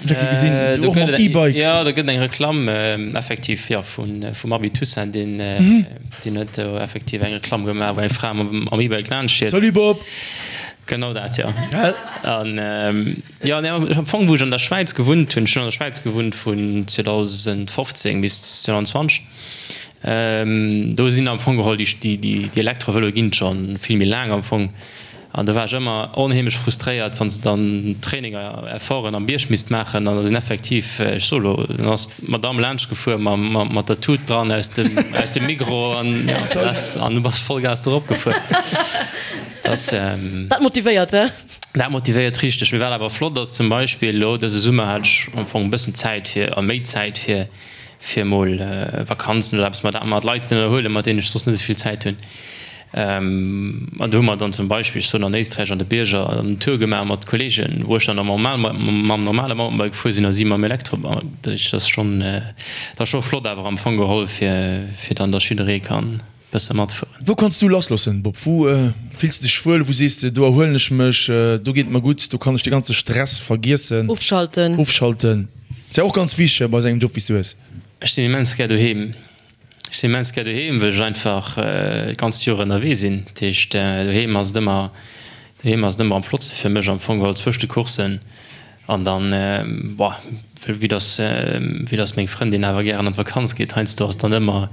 Gesinn, do gëtt et, jo, do gëtt eng Reklamm effektiv, jo, vun, vum Abi Toussaint, deen, deen huet do effektiv eng Reklamm gemaach, wou eng Fra mam, mam E-Bike laanscht fiert. Salut Bob! Genau dat, jo. An, jo, nee, am Fong, wou ech an der Schwäiz gewunnt hunn, ech hunn an der Schwäiz gewunnt vun 2015 bis 2020, do sinn am Fong geholl déi, déi, déi Elektrovëloe ginn et scho vill méi laang am Fong. An do war ech ëmmer onheemlech frustréiert, wann se dann Traininger, Efforten am Bierg misst maachen an da sinn effektiv, ech soe lo, dann ass d'Madamm laanscht gefuer mat der Tut dran aus dem, aus dem Migros an ja, das, an du bass Vollgas do erop gefuer. Das, Dat motivéiert, he? Dat motivéiert richteg. Mee wat awer flott ass, zum Beispill elo dëse Summer hat ech am Fong e bëssen Zäit fir, a méi Zäit fir, fir emol Vakanzen oder eppes mat, mat Leit ze ënnerhuelen, mat deenen ech soss net esou vill Zäit hunn. An do hu mer dann zum Beispill, ech soen an Éisträich an de Bierger, en Tour gemaach mat Kolleegen, wou ech dann normal mam normale Mountainbike gefuer sinn a si mam Elektrobike. Dat ass schonn, dat ass scho flott awer am Fong geholl, fir fir dann, datt jidderee kann e bësse matfueren. Wou kanns du lassloossen, Bob? Wou fills de dech wuel? Wou sees de, do erhuelen ech mech, do geet et mer gutt, do kann ech de ganze Stress vergiessen? Ofschalten. Ofschalten ass ja och ganz wichteg bei esou engem Job wéi s du hues. Ech sinn immens gär doheem. Ech sinn immens gär doheem, well ech einfach d'ganzt Joer ënnerwee sinn. Dat heescht, doheem ass et ëmmer, doheem ass et ëmmer am flottste fir mech am Fong geholl zwëscht de Courssen. An dann, boah, vue dass, vue dass meng Frëndin awer gären an d'Vakanz geet, heiansdo ass dann ëmmer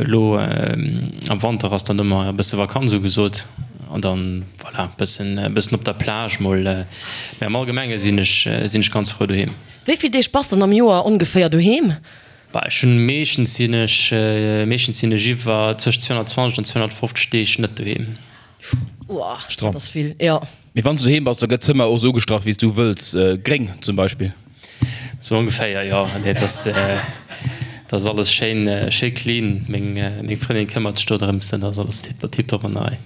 elo am Wanter ass dann ëmmer e bësse Vakanz ugesot. An dann, voilà, bëssen, bëssen op der Plage mol. Mee am Allgemenge sinn ech, sinn ech ganz frou doheem. Wéi vill Deeg bass dann am Joer ongeféier doheem? Bah, ech hunn meeschtens sinn ech, meeschtens sinn ech iwwer zwëscht 220 an 250 Deeg net doheem. Uah, dat ass vill, jo. Mee wann s du doheem bass, da gëtt d'Zëmmer och esou ugestrach wéi s du wëlls, gréng zum Beispill? Sou ongeféier, jo. Nee, et ass, et ass alles schéin, schéi clean. Meng, meng Frëndin këmmert sech do drëms, dat ass alles tiptop an der Rei.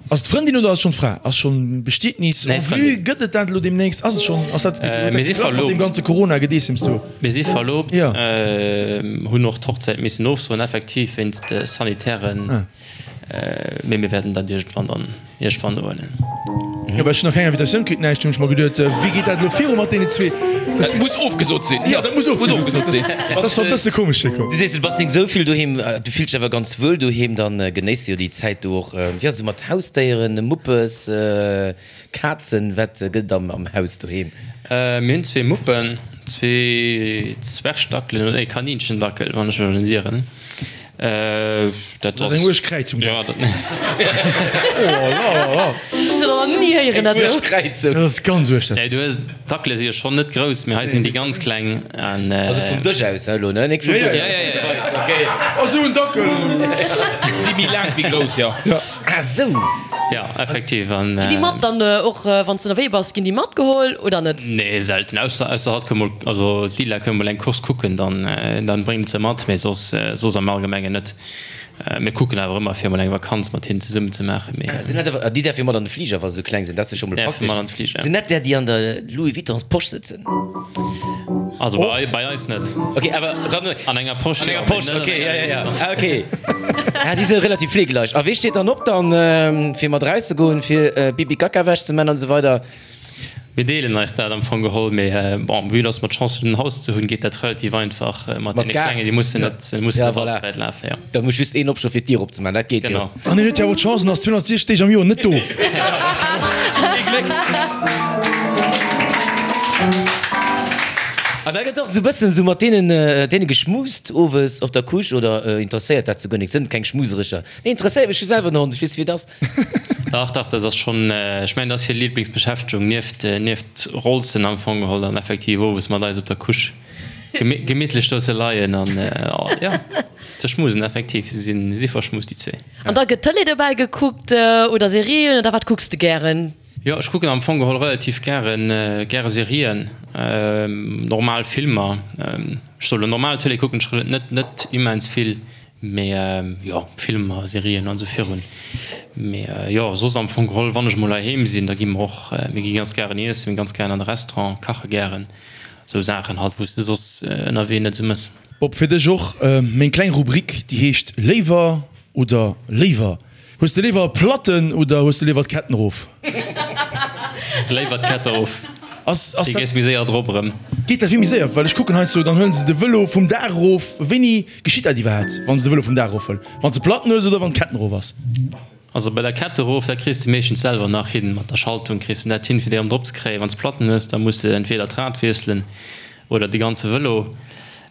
Ass et d'Frëndin oder ass et schonn d'Fra? Ass schonn Bestietnis en vue? Gëtt et dat elo deemnächst? Ass et schonn, ass dat, huet dat geklappt mat deem ganze Corona-Gedeessems do? Mir si verloobt, hunn och d'Hochzäit missen ofsoen, effektiv wéinst sanitären, mee mir wäerten dat iergendwann dann iergendwann nohuelen. Jo, well ech hunn nach keng Invitatioun kritt, näischt, hunn ech mer geduet, wéi geet dat elo viru mat deenen zwee? Dat muss ofgesot sinn. Jo, dat muss ofgesot sinn. Dat ass scho e bësse komesch virkomm. Du sees, du bass nik esou vill doheem, du fills dech awer ganz wuel doheem, dann genéiss de jo déi Zäit do och, jo, esou mat Hausdéieren, Muppes, Kazen, wat gëtt et am Haus doheem? Mir hunn zwee Muppen, zwee Zwergdackelen, nee, Kaninchendackel, wann ech mech net ieren. Dat ass eng uerg Kräizung. Ja, dat. Oh la la la. Ech hunn nach ni héieren dat esou. Eng uerg Kräizung. Dat ass ganz uerg dat. Nee, du hues, d'Dackele si jo schonn net grouss, mee hei sinn déi ganz kleng an. Also vum Dësch aus elo, ne? Nik vum Ja, ja, Buedem. Ja, ja, ja. Okay. Oh, sou en Dackel. Si méi laang wéi grouss, jo. Ja. Ah sou. Ja, effektiv an. Ginn déi mat dann och wann s de ënnerwee bass, ginn déi matgeholl oder net? Nee, selten. Ausser ausser hatt koum mol, also d'Lila koum mol eng Course kucken, dann dann bréngt se mat, mee soss soss am Allgemengen net. Mir kucken awer ëmmer fir mol eng Vakanz mat hinnen zesummen ze maachen, mee. Sinn dat awer, déi däerf jo mat an de Fliger wa se sou kleng sinn, dat ass jo scho mol Däerfe praktesch. mat an de Fliger, ja. Sinn dat där déi an der Louis Vuittons Posch sëtzen? Also bei, bei eis net. Ok, awer dann. An enger Posch, An enger Posch, ok, ja, ja, ja. Ah, ok. Ah, déi si relativ fleegeleicht. A wee steet dann op dann, fir mat erauszegoen, fir Pipi Kaka Wäsch ze man an esou weider? Mir deelen eis dat am Fong geholl, mee bon, vue dass mer d'Chance hunn en Haus ze hunn, geet dat relativ einfach mat deene Klengen, déi mussen net, mussen net all ze wäit lafen, jo. Da muss just een opstoen, fir d'Dier opzemaachen, dat geet jo. Genau. An hien huet jo awer d'Chance, en ass 260 Deeg am Joer net do. Ee Gléck. An da gëtt och esou bëssen esou mat deenen, deene geschmust owes op der Couche, oder interesséiert dat souguer nik? Sënn keng Schmuserecher? Nee, interesséiert mech, ech hu selwer en Hond, ech weess wéi et ass. Dach, dach, dat ass schonn, ech mengen, dat ass hir Lieblingsbeschäftegung, nieft, nieft Rolzen am Fong geholl, dann effektiv owes mat eis op der Couche gemittlech do ze leien an, jo, ze schmusen, effektiv. Si sinn, si verschmust, déi zwee. An da gëtt Tëlee dobäi gekuckt oder Serien oder wat kucks de gären? Jo, ech kucken am Fong geholl relativ gären, gäre Serien, normal Filmer. Ech soll elo normal Tëlee kucken ech net, net immens vill. Mee jo, Filmer, Serien an esou virun. Mee jo, soss am Fong geholl, wann ech mol heiheem sinn, da gi mer och, mir gi ganz gären iessen, mir gi ganz gären an de Restaurant, kache gären, esou Saachen halt, wou s de soss ënnerwee net esou mëss. Bob, fir dech och meng kleng Rubrik, déi heescht Léiwer oder léiwer. Hues de léiwer e Platten oder hues de léiwer d'Ketten erof? Léiwer d'Kette erof. Ass, ass Déi dat. gees méi séier drop erëm. Geet dat vill méi séier? Well ech kucken heiansdo, dann huelen se de Vëlo vum Daach erof. Wéini geschitt dat iwwerhaapt, wann se de Vëlo vum Daach erofhuelen? Wann s de Platten hues oder wann d'Ketten erof ass? Also bei der Kette erof, dat kriss de meeschtens selwer nach hin. Mat der Schaltung kriss de dat hin, fir déi erëm drop ze kréien. Wann s Platten hues, da muss de entweder d'Rad wiesselen oder de ganze Vëlo.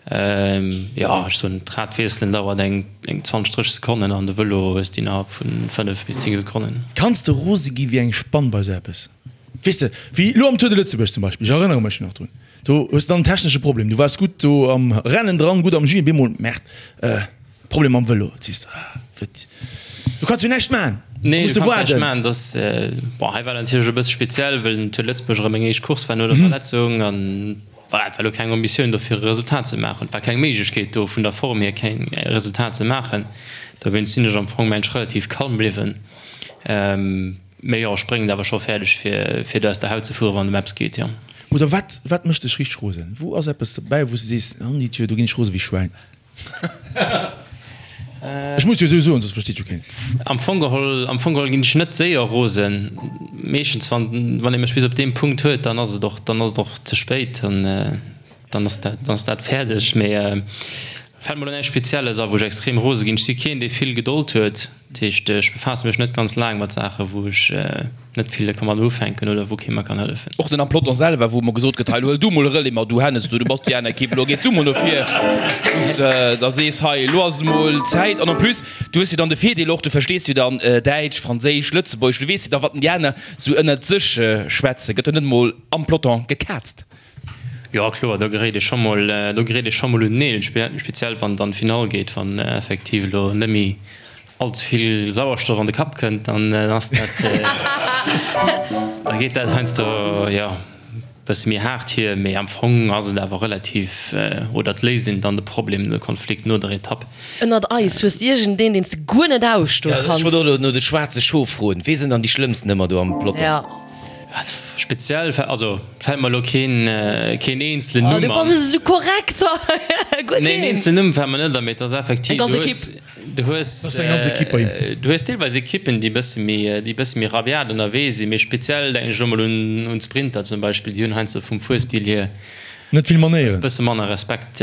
Jo, ech soen, d'Rad wiesselen dauert eng 20, 30 Sekonnen an de Vëlo hues de innerhalb vun 5 bis 10 Sekonnen. Kanns de rose gi wéi eng Spann bei sou eppes? Weess de, wéi elo am Tour de Lëtzebuerg zum Beispill, ech erënnere mech nach drun, do hues de dann en technesche Problem, du waars gutt do am Rennen dran, gutt am Jus, op eemol, Merde, Problem mam Vëlo, sees de, ah, wat, du kanns jo näischt maachen, da Nee, muss du de kanns näischt waarden. maachen. Dass, bon, hei war dat natierlech e bësse speziell, well den Tour de Lëtzebuerg erëm meng éischt Course war no der Verletzung an voilà, et war elo keng Ambitioun do fir e Resultat ze maachen. Et war keng Méiglechkeet do vun der Form hier keng Resultat ze maachen. Dowéinst sinn ech am Fong mensch relativ kalm bliwwen. Mee jo, ech bréngen et awer scho fäerdeg fir fir do aus der Haut ze fueren, wann et ëm eppes geet, jo. Oder wat, wat mécht dech richteg rosen? Wou ass eppes dobäi, wou s de sees, Nanditje, do ginn ech rose wéi Schwäin? Ech muss jo esou soen, soss versteet jo keen. Am Fong geholl, am Fong geholl ginn ech net séier rosen. Meeschtens wann, wann ee mech bis op deem Punkt huet, dann ass et och, dann ass et och ze spéit, dann, dann ass dat, dann ass dat fäerdeg. Mee fält mer elo näischt Spezielles a wou ech extrem rose ginn. Ech si keen, dee vill Gedold huet. Dat heescht, ech befaasse mech net ganz laang mat Saachen, wou ech net vill ka mat ufänken oder wou kee mer kann hëllefen. Och den am Peloton selwer, wou emmer gesot gëtt, hei, lo huel du mol e Relais mat, du Hennes, du, du bass déi aner Ekipp, elo gees du mol no vir, wou s de da sees, hei, elo ass et mol Zäit. An en plus, du hues jo dann de Virdeel och, du verstees jo dann Däitsch, Franséisch, Lëtzebuergesch, du weess jo da, wat denn déi aner sou ënnert sech schwätzen. Gëtt jo net emol am Peloton gekaazt. Jo, kloer, do geréit ee scho mol, do geréit ee scho mol un d'Neel, speziell wann et an d'Finall geet, wann effektiv elo net méi all ze vill Sauerstoff an de Kapp kënnt, dann ass dat, da geet dat heiansdo, jo, e bësse méi haart hier. Mee am Fong ass et awer relativ, oder et léist een dann de Problem, de Konflikt no der Etapp. Ënnert eis, hues de iergendeen, deen s de guer net ausstoe Ja, ech kanns? wollt och elo no de schwaarze Schof froen. Wee sinn dann déi schlëmmsten ëmmer do am Peloton? Ja. Speziell, also fält mer elo keen keen eenzelen Oh, Numm du an. bass esou korrekt hei. Nee, en eenzelen Numm fält mer net an, mee et ass effektiv, Eng ganz du hues, Ekipp. du hues, Dat ass eng ganz Ekipp bei him. du hues deelweis Ekippen, déi e bësse méi, déi e bësse méi rabiat ënnerwee sinn, mee speziell denken ech elo mol un un d'Sprinter zum Beispill, déi hunn heiansdo vum Fuerstil hier Net vill Manéieren. e bësse manner Respekt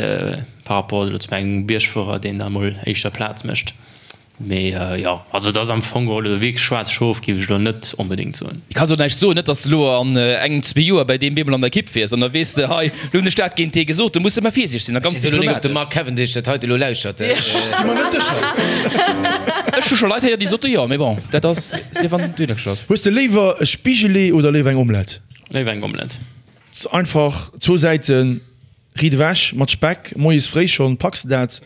par rapport elo zu engem Biergfuerer, deen da mol éischter Plaz mécht. Mee jo, also et ass am Fong geholl elo wierklech schwaarz Schof géif ech elo net onbedéngt soen. Ech kann och näischt soen, net dass de elo an engem, zwee Joer bäi deem bemol an der Ekipp wiers an da weess de, hei, elo hunn ech dat géint dee gesot. Do muss de ëmmer virsiichteg sinn a ganz diplomatesch. Ech weess elo net, ob de Mark Cavendish dat heite elo lauschert. Ech si mer net sécher. Ech hu scho Leit héieren, déi sote jo, mee bon, dat ass, sief an du glücklech bass. Hues de léiwer e Spigelee oder léiwer eng Omelette? Léiwer eng Omelette. Einfach zwou Säiten. Riit ewech mat Speck, moies fréi schonn, packs de dat?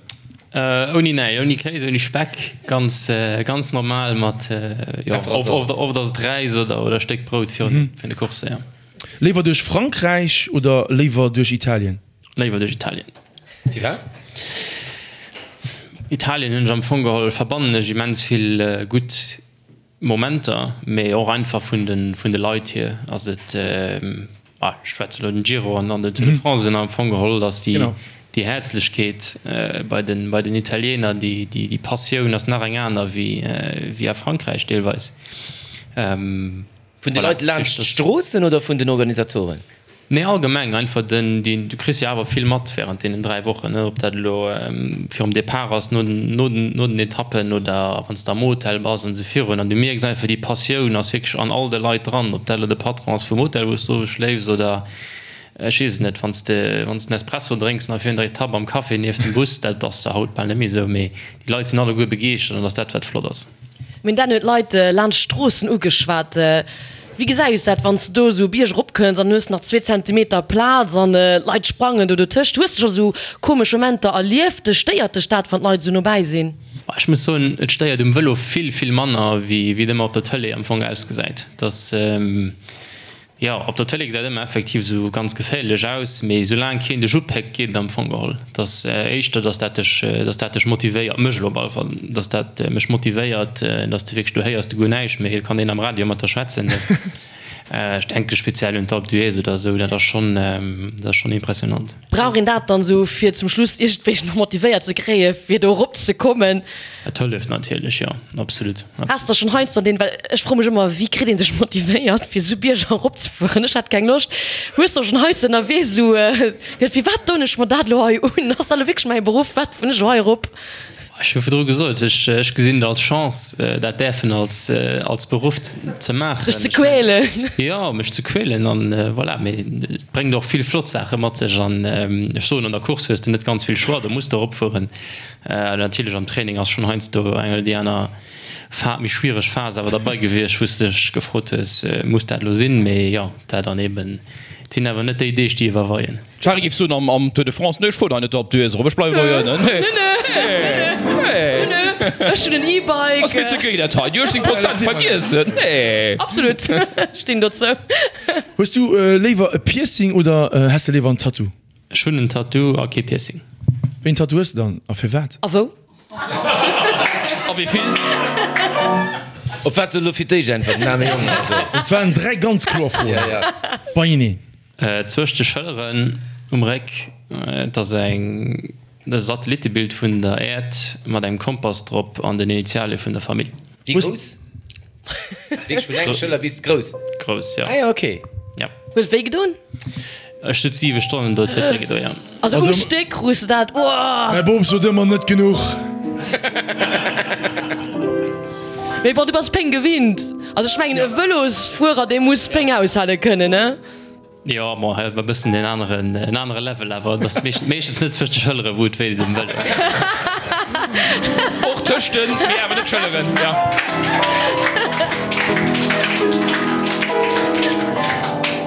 Ouni näischt, ouni Kéis, ouni Speck, ganz ganz normal mat, jo, oft oft ass et Räis oder oder e Stéck Brout virun de Coursse, jo. Léiwer duerch Frankräich oder léiwer duerch Italien? Léiwer duerch Italien. Firwat? Italien hunn ech am Fong geholl, verbannen ech immens vill gutt Momenter, mee och einfach vun de vun de Leit hier ass et, ah ech schwätze elo den Giro an an den Tour de France un, am Fong geholl ass déi déi Häerzlechkeet bei den bei den Italiener, déi déi déi Passioun ass nach eng aner wéi wéi a Frankräich deelweis. Vun de Leit laanscht d'Stroossen oder vun den Organisatoren? Nee, allgemeng einfach den, deen, du kriss jo awer vill mat während deenen 3 Wochen, ne, ob dat elo virum Depart ass, no den, no den, no den Etappen oder wann s de am Hotel bass an esou virun. An du mierks einfach, déi Passioun ass wierklech an all de Leit dran, ob dat elo de Patron ass vum Hotel, wou s du schléifs oder ech weess et net, wann s de, wann s de en Espresso drénks nach virun der Etapp am Café nieft dem Bus, dat ass zwar haut bal net méi esou, mee déi Leit sinn alleguer begeeschtert an dat ass dat, wat flott ass. Mir hunn dat huet d'Leit laanscht d'Stroossen ugeschwat. Wéi gesäis dat wann s de do esou Bierg erop kënns an hues nach zwee Zentimeter Plaz an d'Leit sprangen do dotëscht? Hues de scho sou komesch Momenter erlieft? Stéiert dech dat wann d'Leit esou nobäi sinn? Ech muss soen, et stéiert um Vëlo vill, vill manner wéi et ëmmer op der Tëlee am Fong ausgesäit. Dass, jo, op der Tëlee gesäit ëmmer effektiv esou ganz geféierlech aus, mee soulaang keen dech upéckt, geet et am Fong geholl. Et ass éischter, dass dat dech, dass dat dech motivéiert, mech elo op alle Fall, dass dat mech motivéiert, dass de wierklech, du héiers de guer näischt méi, et kann een am Radio mat der schwätzen. Ech denke speziell un d'Alpe d'Huez oder esou, dat ass schonn, dat ass schonn impressionant. Brauch een dat dann esou fir zum Schluss iergendwéi nach motivéiert ze kréie fir do erop ze kommen? Et hëlleft natierlech, jo, absolut. Has der schonn heiansdo deen, well ech froe mech ëmmer, wéi kritt ee sech motivéiert fir esou Bierger erop ze fueren? Ech hätt keng Loscht. Hues der schonn heiansdo ënnerwee esou geduet, firwat doen ech mer dat elo hei un? Ass dat elo wierklech mäi Beruff? Wat fueren ech elo hei erop? Ech hu virdru gesot, ech gesinn et als Chance, dat däerfen als als Beruff ze maachen. Dech ze quälen. Jo, mech ze quälen an voilà. Mee et bréngt och vill flott Saache mat sech an ech soen, an der Course hues de net ganz vill Choix, do muss de eropfueren. Natierlech am Training ass schonn heiansdo eng oder déi aner Fa méi schwiereg Phas awer derbei gewiescht, wou s de dech gefrot hues, muss dat elo sinn? Mee jo, dat dann eben, et sinn awer net déi Deeg, déi iwwerweien. D'Shari géif soen am am Tour de France, Nee, ech fueren hei net op d'Hues erop, ech bleiwen hei ënnen. Nee, nee, nee. Ech hunn en E-Bike. Ass mir ze géi dat hei, déi 18 Prozent, vergiess et, nee. Absolut, stinn dozou. Hues du léiwer e Piercing oder häss de léiwer en Tattoo? Ech hunn en Tattoo a kee Piercing. Wéi en Tattoo hues de dann a firwat? A wou? A wéi vill? Op wat soll elo fir d'éischt äntwerten? Den aarme Jong also. Dat waren 3 ganz kloer Froen beieneen. Zwëscht de Schëlleren um Réck, et ass eng e Satellittebild vun der Äerd mat engem Kompass drop an den Initialie vun der Famill. Wéi grouss? Wierklech vun enger Schëller bis grouss? Grouss, jo. Ah jo, ok. Ja. Huet et wéi gedoen? Ech sot 7 Stonnen do, et huet wéi gedoen, jo. Also um Stéck krus de dat, uah! Mäi Bop sot ëmmer, net genuch. Mee bon, du bass Péng gewinnt. Also ech mengen e Vëlosfuerer, dee muss Péng aushale kënnen, ne? Jo, bon, hei huet mer e bëssen en aneren, en anere Level, awer et ass meeschtens net zwëscht de Schëllere wou et wéi deet um Vëlo. Och tëscht den, mee awer net Schëlleren, jo.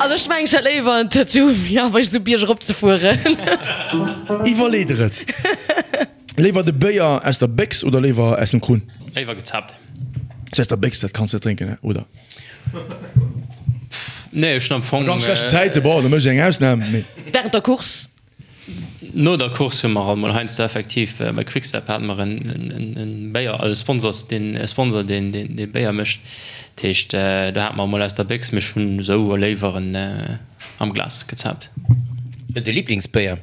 Also ech mengen ech hätt léiwer en Tattoo wéi awer esou Bierg erop ze fueren. Iwwerlee der et. Léiwer de Béier aus der Béchs oder léiwer aus dem Krunn? Léiwer gezaapt. Aus der Béchs, dat kanns de net drénken, hè, oder? Nee, ech hunn am Fong. A ganz schlechten Zäite, bon, da mécht ech eng Ausnam, mee. Während der Course? No der Course hu mer alt mol heiansdo effektiv, bei Quickstep hate mer en Béier, e Sponsors, deen, e Sponsor, deen dee Béier mécht. Dat heescht, do hate mer emol aus der Béchs, mee ech hunn esou léiwer en am Glas gezaapt. De Liblingsbéier?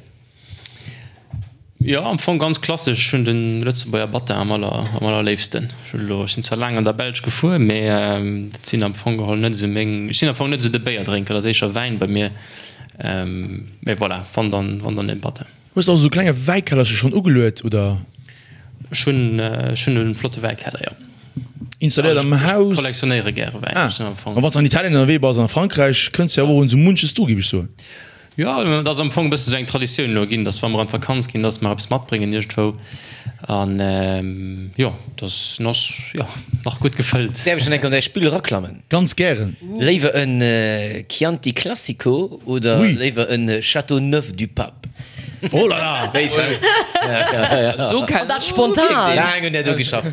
Jo, am Fong ganz klassesch. Ech hunn de Lëtzebuerger Battin am aller, am allerléifsten. Ech hunn elo, ech sinn zwar laang an der Belsch gefuer, mee dat sinn am Fong geholl net esou meng, ech sinn am Fong net esou de Béierdrénker, dat ass éischer Wäin bei mir. Mee voilà, wann dann, wann dann den Battin. Hues de also esou klenge Wäikellercher schonn ugeluet, oder? Ech hunn, ech hunn e flotte Wäikeller, jo. Installéiert am Haus? Ech kollektionéiere gäre Wäin. Ah, a wann s de an Italien ënnerwee bass an a Frankräich, kënns de jo awer och un esou munches dru, géif ech soen. Jo, et ass am Fong e bësse sou eng Traditioun elo ginn, dass wa mer an d'Vakanz ginn, dass mer eppes matbréngen iergendwou. An jo, dass ass jo nach gutt gefëllt. Däerf ech dann eng Kéier an däi Spill eraklammen? Ganz gären. Léiwer en Chianti Classico oder léiwer en Châteauneuf-du-Pape? Oh là là! Wéi Do An dat spontan! Laang un där do geschafft.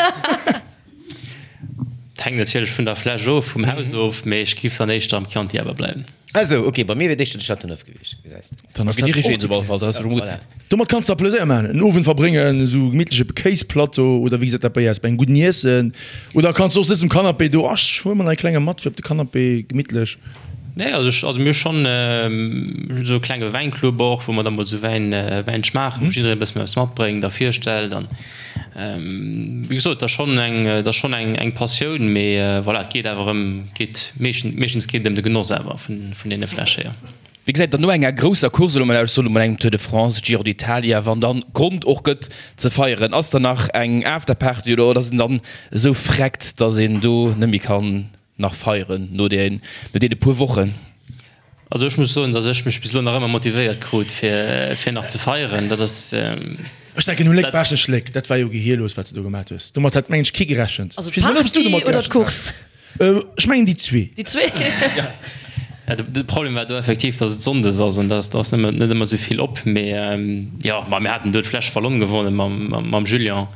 Hänkt natierlech vun der Fläsch of, vum Haus of, mee ech giff dann éischter am Chianti awer bleiwen. Ah sou, ok, bei mir wier et éischter de Châteauneuf gewiescht, gesäis de. Dann ass dat och gutt. Domat kanns de der Pleséier maachen, en Owend verbréngen, esou gemittleche Kéisplateau oder wéi gesäit dat bei aus, bei engem gudden Iessen oder kanns de och sëtzen um Canapé do, ach ech huele mer nach e klenge mat fir op de Canapé gemittlech. Nee, also ech, also mir hu schonn esou e klenge Wäinclub och, wou mer da mol esou Wäin, Wäin schmaachen, wou jiddereen e bëssen eppes matbréngt a virstellt an wéi gesot, et ass schonn eng, et ass schonn eng, eng Passioun, mee voilà, et geet awer ëm, geet meeschtens, meeschtens geet et ëm de Genoss awer vun, vun deene Fläsche, jo. Wéi gesäit dann no enger grousser Course elo mol aus, ech soen elo mol engem Tour de France, Giro d'Italia, wann dann Grond och gëtt ze feieren, ass dann nach eng Afterparty oder ass een dann esou freckt, dass een do net méi kann nach feieren no deene puer Wochen? Also ech muss soen, datt ech mech bis elo nach ëmmer motivéiert krut fir fir nach ze feieren. Dat ass. Ech denken u Léck Baaschtnech Léck, dat war jo gehierlos wat s de do gemat hues. Domat hat mengen ech kee gerechent. Also d'Party oder d'Course? Ech mengen déi zwee. Déi zwee? Ja, de Problem war do effektiv, datt et Sonndes ass an datt ass net ëmmer esou vill op. Mee jo, ma mir haten do d'Fläsch Vallon gewonnen mam Julien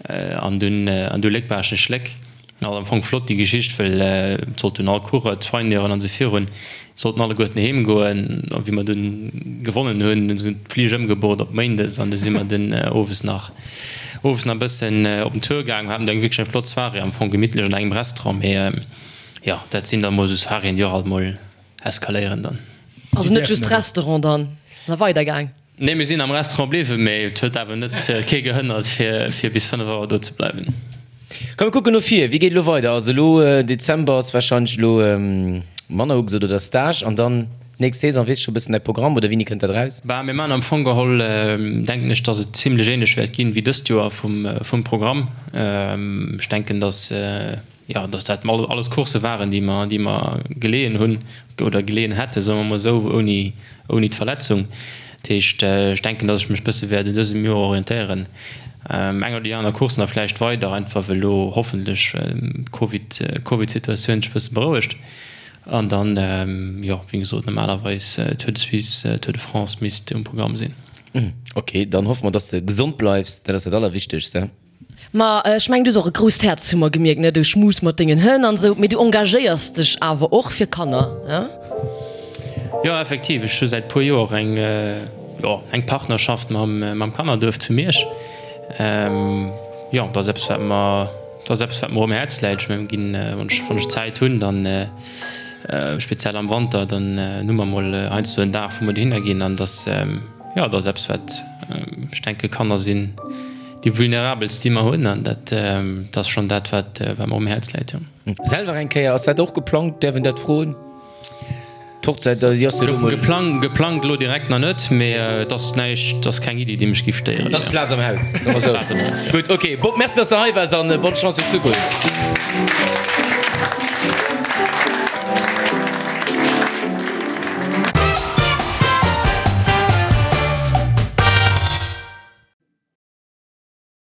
an dunn an du Léck Baaschtnech Léck. Ass am Fong flott déi Geschicht, well et sollten all Coureur, d'Soigneuren an esou virun, sollten alleguerten heem goen. A wéi mer dunn gewonnen hunn, hunn se d'Flich ëmgebucht op Méindes an du si mer dunn owes nach owes nach e bëssen op den Tour gaangen. Haten do eng wierklech eng flott Soirée, am Fong gemittlech an engem Restaurant. Mee jo, dat sinn da mol esou Soiréeën, déi och alt mol eskaléieren dann. Also net just Restaurant dann, nach weider gaang? Nee, mir sinn am Restaurant bliwwen, mee et huet awer net kee gehënnert fir bis 5 Auer do ze bleiwen. Komm mir kucken no vir, wéi geet elo weider? Also elo Dezember ass wahrscheinlech elo manner ugesot oder Stage an dann d'nächst Saison. Weess scho bëssen däi Programm oder wéini kënnt dat eraus? Bah, mir maachen am Fong geholl, denken ech, dass et zimlech ähnlech wäert ginn wéi dëst Joer vum vum Programm. Ech denken, dass jo, dass dat alles Coursse waren, déi mer, déi mer geleeën hunn oder geleeën hätten, soe mer emol esou, ouni, ouni d'Verletzung. Dat heescht, ech denken, dass ech mech e bësse wäert un dësem Joer orientéieren, eng oder déi aner Course nach vläicht weider, einfach well elo hoffentlech d'Covid, d'Covid-Situatioun sech e bësse berouegt. An dann, jo, wéi gesot, normalerweis Tour de Suisse, Tour de France misst um Programm sinn. Ok, dann hoffe mer, dass de gesond bleifs, dat ass dat Allerwichtegste. Ma ech mengen, du hues och e grousst Häerz, hu mer gemierkt, ne? Du schmus mat dengen Hënn an esou, mee du engagéiers dech awer och fir Kanner, ne? Jo, effektiv, ech hu säit puer Joer eng, jo, eng Partnerschaft mam, mam Kannerduerf zu Miersch. Jo, dat ass eppes, wat mer, dat ass eppes, wat mer um Häerz läit. Ech mengen, ginn, wann ech, wann ech Zäit hunn, dann, speziell am Wanter, dann hu mer mol heiansdo en Dag, wou mer dohinner ginn an dass, jo, dat ass eppes, wat, ech denke, Kanner sinn déi vulnerabelst, déi mer hunn, an dat ass schonn dat, wat mer um Häerz läit, jo. Selwer eng Kéier, ass dat och geplangt? Däerf een dat froen? D'Hochzäit, déi ass jo elo mol. Geplangt, geplangt elo direkt nach net, mee et ass näischt, et ass keng Iddi, déi mech géif stéieren. Et ass Plaz am Haus, soe mer esou. Plaz am Haus, jo. Gutt, ok. Bob, merci, dass de hei waars an bonne Chance fir d'Zukunft.